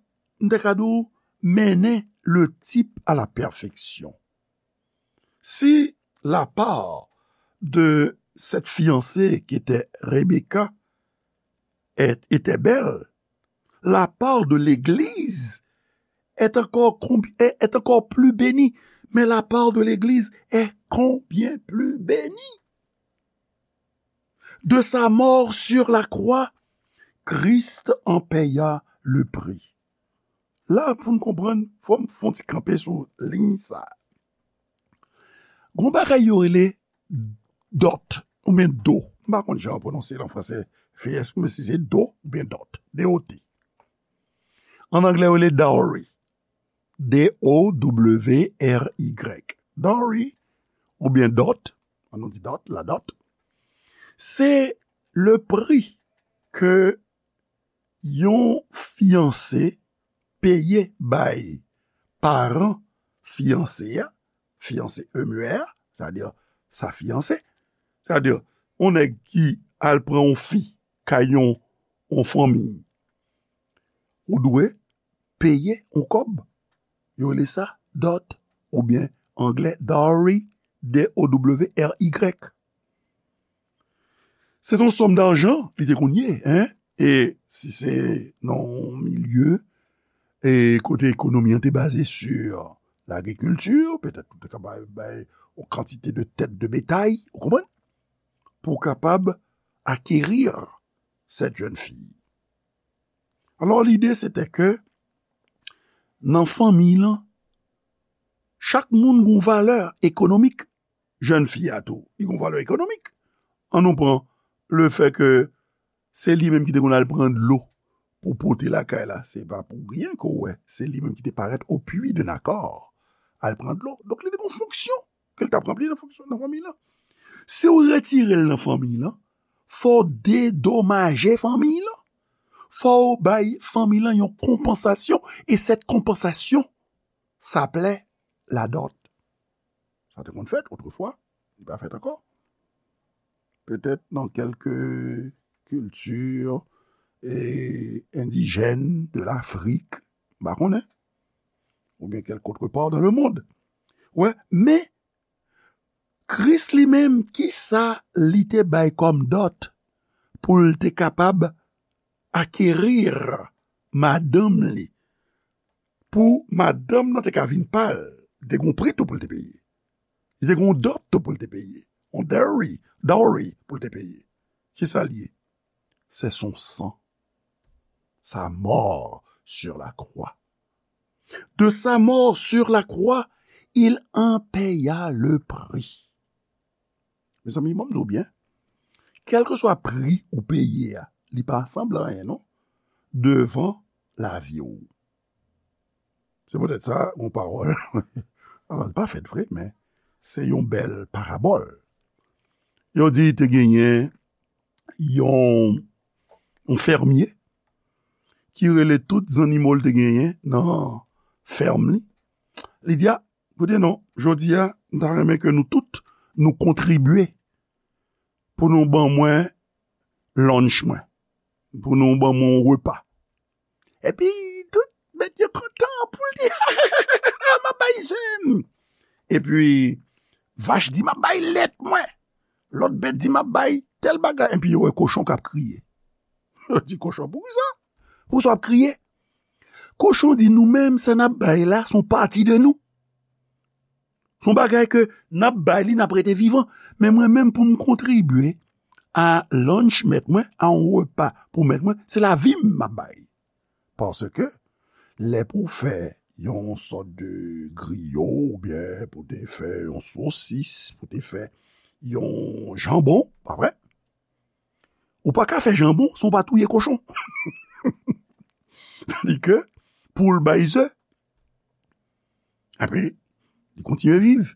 m te ka di w, mennen le type à la perfection. Si la part de cette fiancée qui était Rebecca est, était belle, la part de l'Église est encore, combi- est, est encore plus bénie. Mais la part de l'Église est combien plus bénie. De sa mort sur la croix, Christ en paya le prix. La, pou n konprann, fò m fè yon ti kanpe sou liy sa. Gon bagay yo rele dot, oubyen do. M pa konn jan yo pwononse l an franse, fè espri, men si se do oubyen dot, D O T. An anglè, yo rele dowry. D O W R Y. Dowry, oubyen dot, an nou di dot, la dot, se le pri ke yon fiyanse peye bay paran fiyanse a, fiyanse M E R, sa vle di sa fiyanse, sa vle di yon nèg ki al pran yon fi kay yon, yon fanmi, ou dwe peye yon kòb. Yo rele sa dot, oubyen anglè dowry, D O W R Y. Se yon sòm dajan li te konn ye, en? E si se nan yon milye e kote ekonomi an te baze sur lagrikilti, petèt ou te ka bay, bay yon kantite de tèt de betay, ou konprann? Pou w kapab acquérir cette jeune fille. Alò, lide se te ke nan fanmi lan, chak moun gon valè ekonomik. jèn fi a tou, li gen yon valè ekonomik. Ann nou pran le fè ke se li menm ki te konn al pran dlo pou pote lakay la. Se pa pou ryen ke w wè, se li menm ki te parèt au puits de Nakor al pran dlo. Donk, li te gen yon fonksyon ke l t ap ranpli nan fonksyon, nan fanmiy lan. Si w retire l nan fanmiy lan, fò w dedomaje fanmiy lan. Fò w bay fanmiy lan yon konpansasyon, e cette compensation s'appelait la dot. Sa te konn fèt otrefwa, li pa fèt ankò. Petèt nan kèlke kilti, e, endijèn de Lafrik, m pa konnen, oubyen kèlk otre pa dan le mond. Wè, men Kris li menm, kisa li te bay kòm dot pou l te kapab akeri madanm li? Pou madanm nan te ka vin pa l, li te gen yon pri tou pou l te peye. Li te gen yon dot tou pou l te peye. Yon dowry, dowry pou l te peye. Kisa l ye? C'est son sang. Sa mort sur la croix. De sa mort sur la croix, il en paya le prix. Mezanmi, ban m di w byen, kèlkeswa pri ou peye a, li pa sanble anyen non, devan lavi w. Se poutèt sa, yon pawòl, alò, li pa fèt vre, men se yon bèl parabòl. Yo di te genyen yon, yon fèmye ki rele tout zannimo l te genyen nan fèm li. Li di, a, koute non, jodi a, m ta renmen ke nou tout, nou kontribye pou nou ban mwen lunch mwen, pou nou ban mwen yon repa. Epi, tout bèt yo kontan, poul di, m ap bay je m. Epi, vach di, m ap bay lèt mwen. Lòt bèt di, m ap bay tèl bagay. Epi, yo wè kochon k ap kriye. Yo di, kochon, poukisa? Poukisa w ap kriye? Kochon di, nou menm, sa n ap bay la, se yon pati de nou. Se yon bagay ke n ap bay li, n ap rete vivan. Men mwen menm, pou m kontribye a lunch mèt mwen, a yon repa pou mèt mwen, se lavi m m ap bay. Paske lè pou w fè yon sòt de griyo, oubyen pou te fè yon sosis, pou te fè yon janbon, pa vre? Ou pa ka fè janbon san w pa touye kochon. Tandike, poul bay ze, epi li kontinye viv.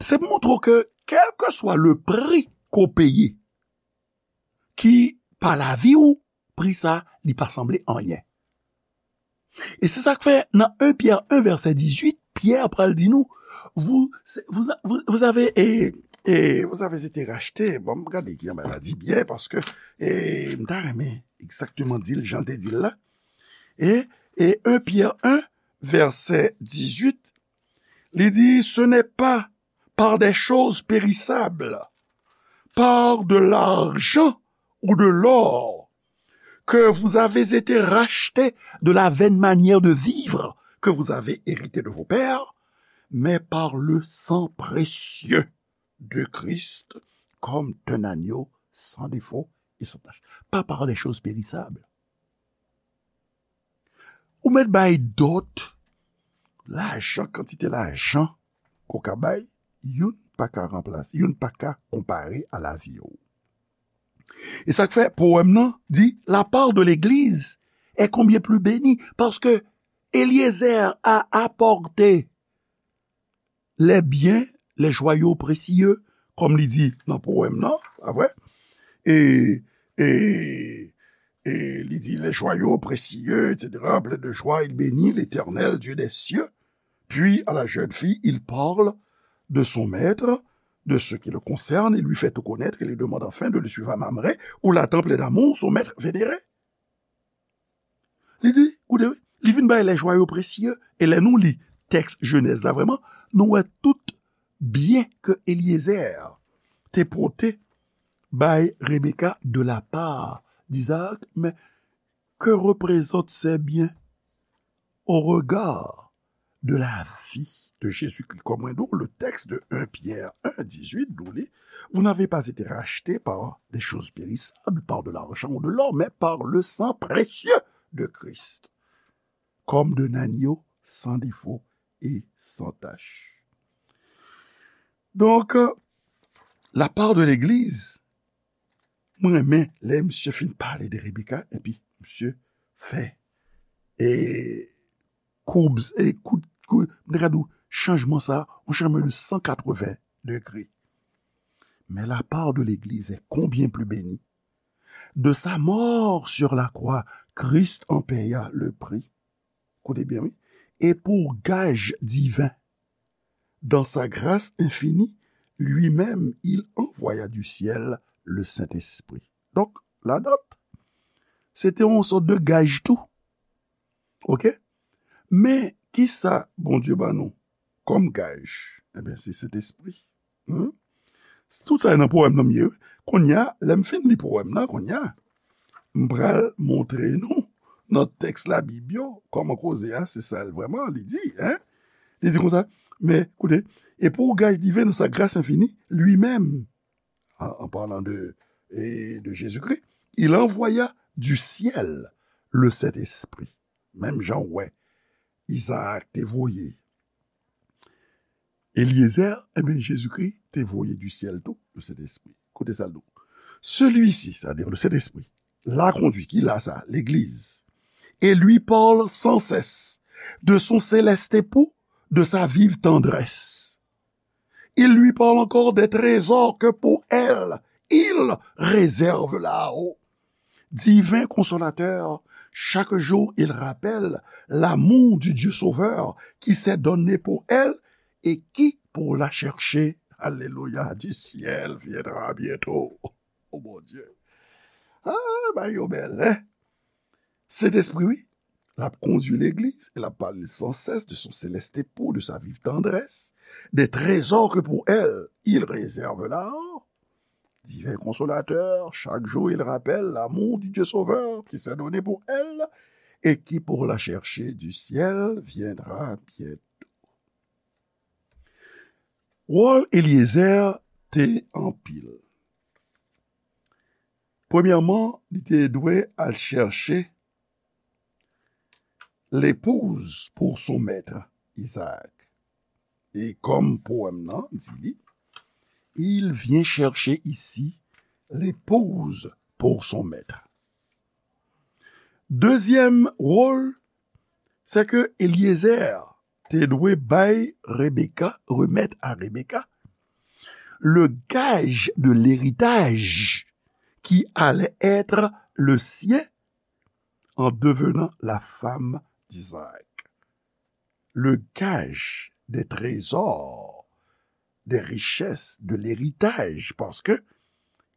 Se pou montre w ke, kèlkeswa le pri ke w peye, ki pa lavi w, pri sa, li pa sanble anyen. E se sa k fè nan en Pyè en vèsè dizuit, Pyè pral di nou, vous, vous, vous, vous avez, et, et vous avez été racheté. Bon, m gade ki jan bagay la di byen, paske, e, m ta renmen egzakteman di l jan l te di l la. E, e en Pyè en, vèsè dizuit, li di, ce n'est pas par des choses périssables, par de l'argent ou de l'or, que vous avez été rachetés de la vaine manière de vivre que vous avez hérité de vos pères, mais par le sang précieux de Christ, comme d'un agneau sans défaut et sans tache. Pas par des choses périssables. Ou mèt bay dot, lajan, kantite lajan ke w ka bay, youn pa ka ranplase, youn pa ka konpare a lavi w. E sa k fè powèm nan di, la part de l'Église est combien plus bénie, parce que Eliezer a apporté les biens, les joyaux précieux, kòm li di nan powèm nan, pa vre? E, e, e li di, les joyaux précieux, et cetera, plein de joie, il bénit l'Éternel, Dieu des cieux. Puis, à la jeune fille, il parle de son maître, de ce qui le concerne, il lui fait tout connaître, il lui demande enfin de le suivre à Mamré, où la temple d'amour, son maître vénéré. Li di, koute, wi, li vin bay les joyaux précieux, e lè nou li tèks Jenèz la vrèman, nou wè tout byen ke Eliezer te pote bay Rebecca de la part d'Isaac, mais que représentent ces biens au regard de la vie de Jésus-Christ? Kòm mwen di w, le texte de un Pierre un dix-huit, nou li, vous n'avez pas été rachetés par des choses périssables, par de l'argent ou de l'or, mais par le sang précieux de Christ, comme d'un agneau sans défaut et sans tache. Donk, la part de l'église, mwen renmen lè misye fin pale de Rebecca, epi misye fè e koub, e kout, kout, m te ka di w, chanjman sa, yon chanjman de san katreven degre. Mais la part de l'église est combien plus bénie. De sa mort sur la croix, Christ en paya le prix. Koute byen, wi. Et pour gage divin, dans sa grâce infinie, lui-même, il envoya du ciel le Saint-Esprit. Donk, ladan, se te yon sòt de gaj tou. Oke? Men, kisa Bondye ban nou kòm gaj? Ebyen, se Sentespri. Hmm? Tout sa nan powèm nan m ye, wi. Kounye a, lè m fin li powèm nan, kounye a, m pral montre nou nan tèks Labib yo, kòman koze a, se sa l vrèman, li di, en? Li di konsa, men, koute, et pour gage divin dans sa grâce infinie, lui-même, en, en parlant de, et de Jésus-Christ, il envoya du ciel le Saint-Esprit. Menm jan w wè, Izaak te voye Eliezer, ebyen, Jezikri te voye du ciel tou, le Saint-Esprit. Koute sa l di w. Celui-ci, c'est-à-dire le Saint-Esprit, l'a conduit, ki la sa, legliz, et lui parle sans cesse de son céleste époux, de sa vive tendresse. Il lui parle encore des trésors que pour elle, il réserve là-haut. Divin Consolateur, chaque jour il rappelle l'amour du Dieu Sauveur qui s'est donné pour elle et qui, pour la chercher, alléluia, du ciel viendra bientôt. Oh mon Dieu. Ah, bagay yo bèl, hein? Sentespri, wi, l ap kondui legliz, e l ap pale sans cesse de son céleste époux, de sa vive tendresse, des trésors que pour elle il réserve là-haut. Divin Consolateur, chaque jour il rappelle l'amour du Dieu Sauveur qui s'est donné pour elle et qui, pour la chercher du ciel, viendra bientôt. Wòl Eliezer te anpil. Premyèman, li te dwe al chèche l'épouse pour son maître, Isaac. E kòm powèm nan di li, il vient chercher ici l'épouse pour son maître. Dezyèm wòl, se ke Eliezer te dwe bay Rebecca, remettre à Rebecca, le gage de l'héritage qui allait être le sien en devenant la femme d'Isaac. Le gage des trésors, des richesses, de l'héritage, parce que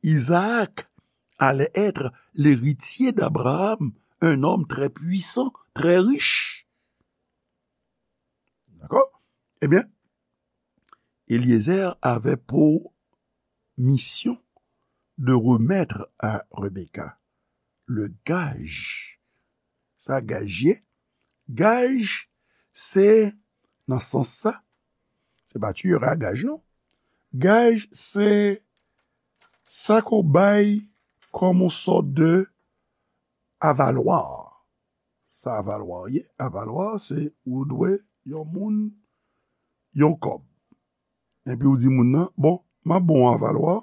Isaac allait être l'héritier d'Abraham, un homme très puissant, très riche. D'accord? Eh bien, Eliezer avait pour mission de remettre à Rebecca le gage. Sa gaj ye? Gaj, se nan sans sa, se pa tu iras à gage, non. Gaj, se sa ke w bay kòm yon sòt de avalwa. Sa avalwa ye? Avalwa, se ou dwe yon moun yon kòb. Epi ou di moun nan, bon, m ap ba w yon avalwa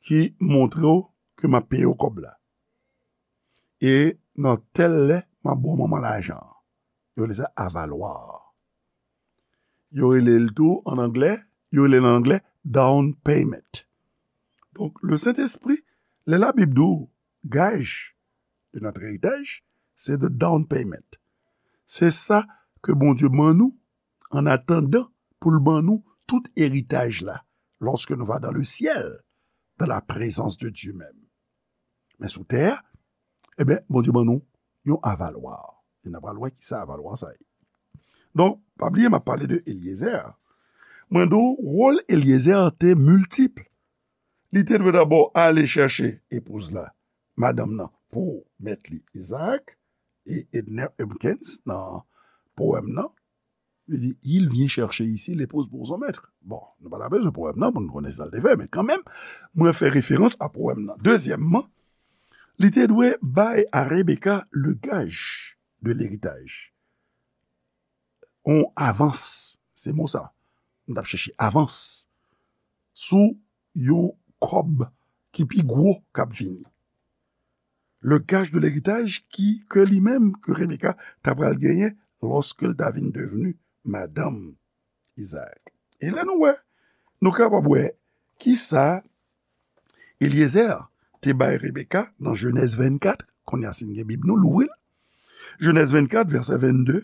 ki montre w ke m ap peye w kòb la. E nan tèl lè, m ap ba w manman lajan an. Yo rele sa avalwa. Yo rele l tou, an anglè, yo rele l an anglè, down payment. Donk, le Sentespri, lè Labib di w gaj de notre héritage, se the down payment. Se sa ke Bondye ban nou, an atandan pou l ban nou tout eritaj la, lorsque nous va dans le ciel, dans la présence de Dieu même. Men sou tè a, ebyen, Bondye ban nou yon avalwa. E n a pral wè ki sa avalwa sa ye. Donk, pa bliye, m ap pale de Eliezer. Mwen di w, wòl Eliezer te miltip. Li te dwe dabò ale chèche epouz la, madanm nan, pou mèt li, Isaac, e Edner Hopkins, nan powèm nan, li di, il vient chercher ici l'épouse pour son maître. Bon, nou pa ta bezwen powèm nan pou nou konnen sa l te fè, men kanmenm, mwen fè referans a powèm nan. Dezyèmman, li te dwe bay a Rebecca le gage de l'héritage. On avans, se mo sa. M t ap chèche avans. sou yon kòb ki pi gwo k ap vini. Le gage de l'héritage ki, ke li menm, ke Rebeka ta pral genyen lòske l ta vin devni madanm Izaak. E lè nou wè, nou kapab wè kisa Elyezer te bay Rebeka nan Jenèz vennkat, kounye a si n gen Bib nou, louvri l. Jenèz vennkat, vèsè vennde,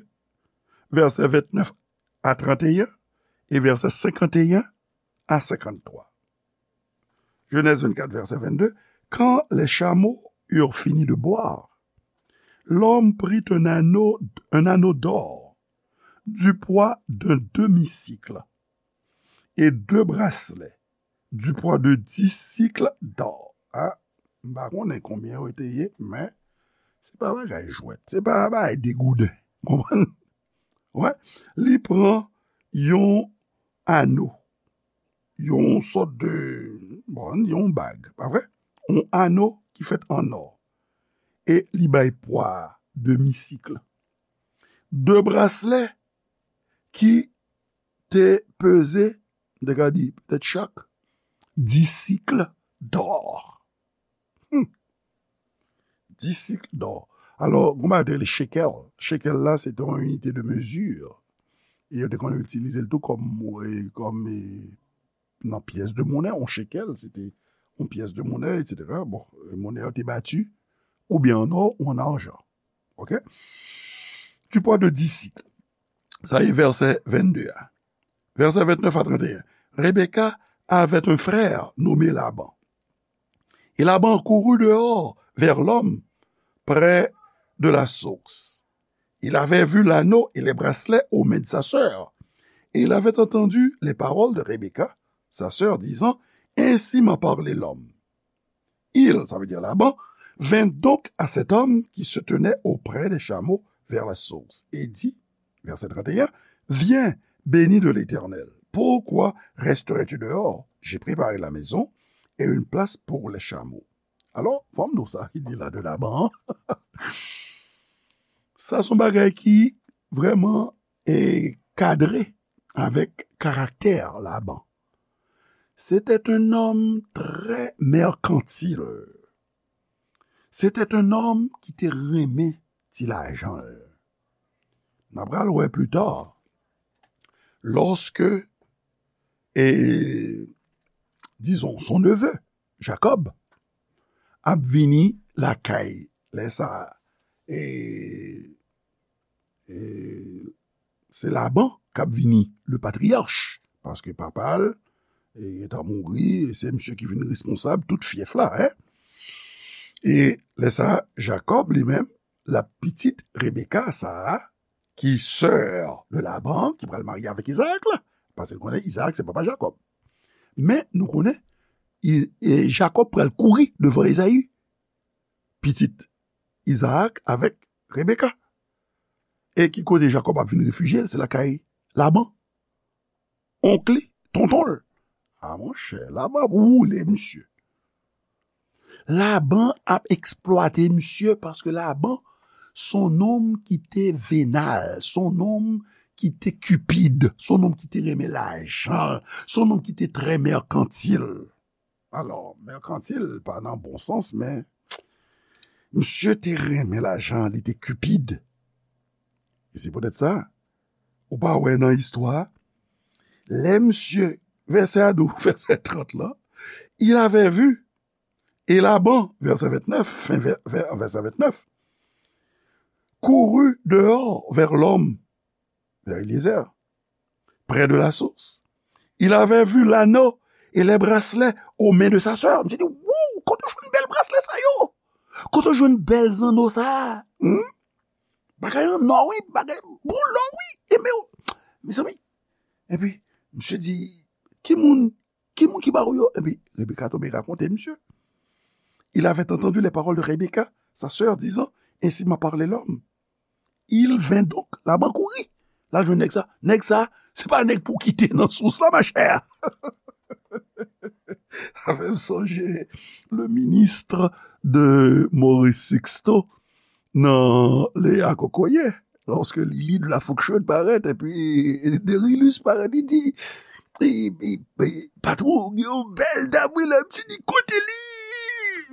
vèsè vennèf a trannteyen, e vèsè senkanteyen a senkanntwa. Genèse vingt-quatre, verset vingt-deux. Quand les chameaux eurent fini de boire, l'homme prit un anneau, un anneau d'or du poids d'un demi-sicle et deux bracelets du poids de dix sicles d'or. Ah, m pa konnen konbyen yo te ye, men se pa bagay jwèt, se pa bagay degouden. Konprann? Wè, li pran yon ano, yon sòt de, bon, yon bag, pa vre? Yon ano ki fèt an nò. E li bay pwa a demi sik. De braslè ki te peze, m te ka di, petèt chak, dis sik dò. Hmm. Dis sik dò. Alò, gon bagay yo te rele shekel. Shekel la, se te yon inite de mezi. E yo te konn itilize l tou kòm, e, kòm, e, nan pyès de monè, yon shekel, se te yon pyès de monè, etsetera. Bon, e, monè yo te bati, oubyen an nò ou an ajan. Ok? Du poids de dix sicles. Sa e vèsè vennde a. Verset vingt-neuf à trente et un. Rebecca avait un frère nommé Laban. Et Laban courut dehors vers l'homme près de la source. Il avait vu l'anneau et les bracelets aux mains de sa sœur. Et il avait entendu les paroles de Rebecca, sa sœur, disant, ainsi m'a parlé l'homme. Il, ça veut dire Laban, vint donc à cet homme qui se tenait auprès des chameaux vers la source et dit, verset trente et un, viens, béni de l'Éternel, pourquoi resterais-tu dehors? J'ai préparé la maison et une place pour les chameaux. Alò, fò m di w sa ki di la de Laban an. Sa se yon bagay ki vrèman, e, kadre avèk karaktè Laban. C'était un homme très mercantile. C'était un homme ki te renmen ti lajan l. N a pral wè pli ta, lòske, e, dizon, son neveu, Jacob, ap vini lakay, lè sa, e, e, se Laban k ap vini le patriarch, paske papa l, e, gentan mouri, e se misye ki vin responsab tout fyèf la, en. E lè sa, Jacob, li menm, l ap pitit Rebecca, sa a, ki sè de Laban, ki pral marye avèk Izaak la, paske nou konnen Izaak se papa Jacob. Men, nou konnen, I-, e, Jacob pral kouri devan Ezayi, pitit Izaak avèk Rebecca. E ki kote Jacob ap vin refijye l? Se lakay Laban. Onk li, tonton l. A, monchè, Laban ap woule misye. Laban ap eksplwate misye paske Laban se yon nonm ki te venal, se yon nonm ki te cupide, se yon nonm ki te renmen lajan, se yon nonm ki te trè mercantile. Alò, mercantile pa nan bon sans, men misye te renmen lajan, li te cupide. E se poutèt sa, ou pa wè nan istwa, lè misye, vèsè a di w, vèsè trant la, il avait vu, et Laban, verset vingt-neuf, fin vè-, vè-, verset vingt-neuf, courut dehors vers l'homme, vers Eliezer, près de la source. Il avait vu l'anneau et les bracelets aux mains de sa sœur. Misye di, wouw, kote w jwenn bèl braslè sa yo? Kote w jwenn bèl zanno sa a? Hmm? Bagay an nò, wi, bagay boulò, wi. E men, mezanmi. Epi, misye di, ki moun, ki moun ki ba w yo? Epi, Rebecca tonbe rakonte misye. Il avait entendu les paroles de Rebecca, sa sœur, disant, ainsi m'a parlé l'homme. Il vint donc, Laban kouri. L al jwenn nèg sa. Nèg sa, se pa nèg pou kite nan sous la, machè. Sa fè m sonje le ministre de Maurice Sixto nan Léa Kokoye. Lòske Lili de la Fonction parèt, epi Derilus parèt, li di, e, e, e, patwon, gen yon bèl dam, wi, la, m di, kote li?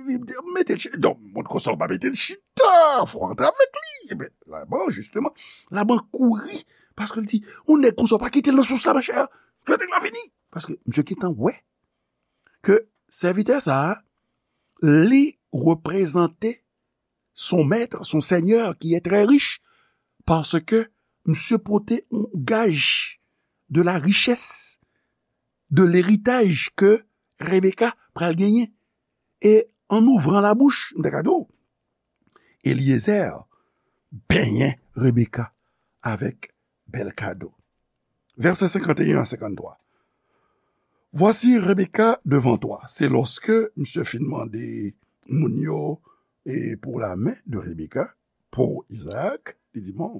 Li di, mete l chita. Donk, moun konsa, w pa mete l chita, fò w antre avèk li. Ebyen, Laban, jisteman, Laban kouri, paske l di, yon nèg konsa, w pa kite l nan sous la, monchè. Fè nèg la vini. Paske misye gentan wè ke sèvitè sa a, li reprezante son maître, son seigneur qui est très riche, paske misye pote yon gaj de la richès, de leritaj ke Rebeka pral genyen. E an ouvran labouch, m ta ka di w, Eliezer benyen Rebeka avèk bèl kado. Vèsè senkanteyen a senkanntwa. Voici Rebecca devant toi. Se lòske misye fin mande moun yo, e, pour la main de Rebecca, pour Isaac, li di, bon,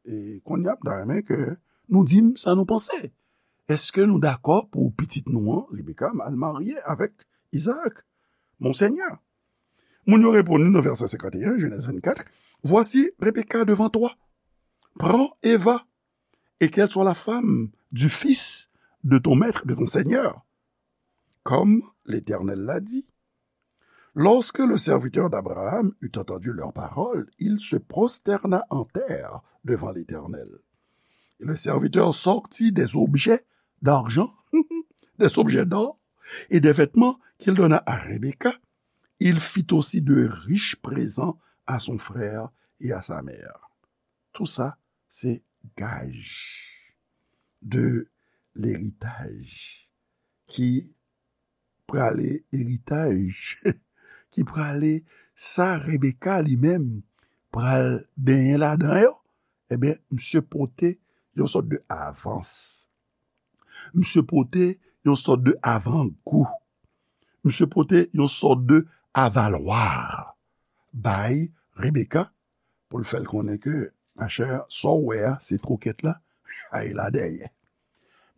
e, kounye a, m ta renmen ke nou di m sa nou panse. Èske nou dakò pou pitit nou an, Rebecca, al marye avèk Isaac, Monseigneur? Moun yo reponn li nan vèsè senkanteyen, Genèse vingt-quatre, voici Rebecca devant toi. Prends et va, et qu'elle soit la femme du fils de ton maître, de ton seigneur, comme l'Éternel l'a dit. Lorsque le serviteur d'Abraham eut entendu leurs paroles, il se prosterna en terre devant l'Éternel. Et le serviteur sortit des objets d'argent, des objets d'or et des vêtements qu'il donna à Rebecca. Il fit aussi de riches présents à son frère et à sa mère. Tout ça, c'est gage de l'héritage ki prale eritaj, ki prale sa Rebeka li menm pral benyen ladan yo, ebyen, misye pote yon sòt de avans. Misye pote yon sòt de avangou. Misye pote yon sòt de avalwa bay Rebeka pou l fè l konnen ke, machè, sa w wè a, se twokèt la, chay la dèyè.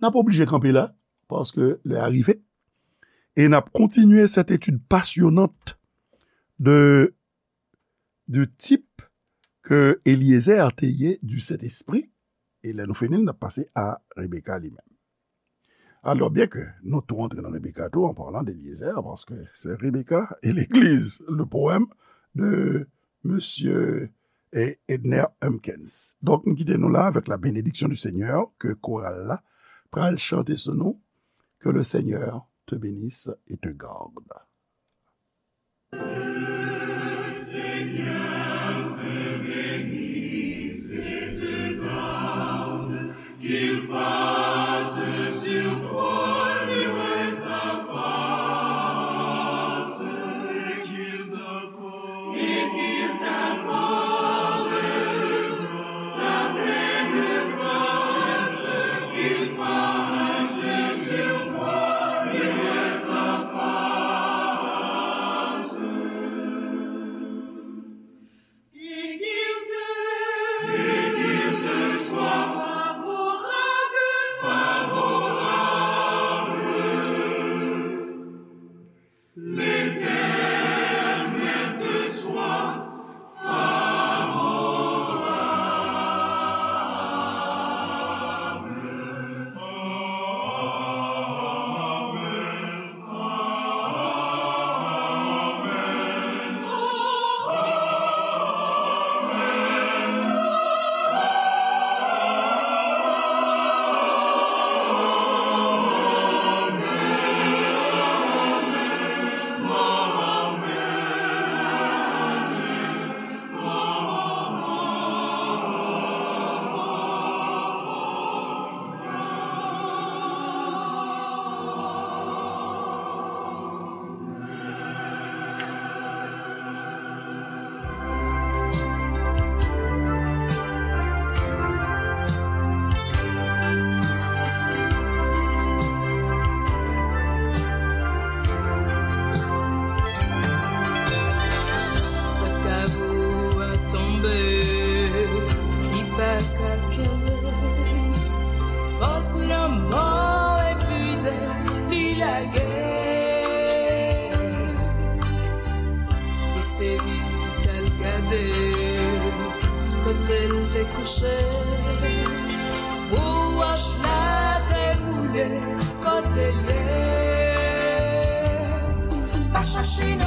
N ap oblije kanpe la, paske lè a rive. E n ap kontinye cette étude passionnante de, du type que Eliezer te ye du Saint-Esprit. E lè nou fini, n ap pase a Rebeka li menm. Alors, bien que nous tout rentrons dans Rebecca tout en parlant d'Eliezer, parce que c'est Rebecca et l'Église, le poème de Monsieur Edner Humpkins. Donk, m kite nou la avèk la bénédiction du Seigneur, ke koral la pral chante sou nou, que le Seigneur te bénisse et te garde. Le Seigneur te bénisse et te garde, qu'il fasse sur toi luire sa face, et qu'il t'accorde, et qu'il t'accorde sa pleine grâce, qu'il fasse sur toi luire sa face. Et qu'il te, et qu'il te soit favorable, favorable. L'Éternel te soit favorable. Amen. Pòt kavo a tonbe, li pa ka kenbe. Fòs lanmò epuize, li lage. Li sezi t al gade kote l te kouche. Pou wòch la te woule. Kote l ye? Pa chache non.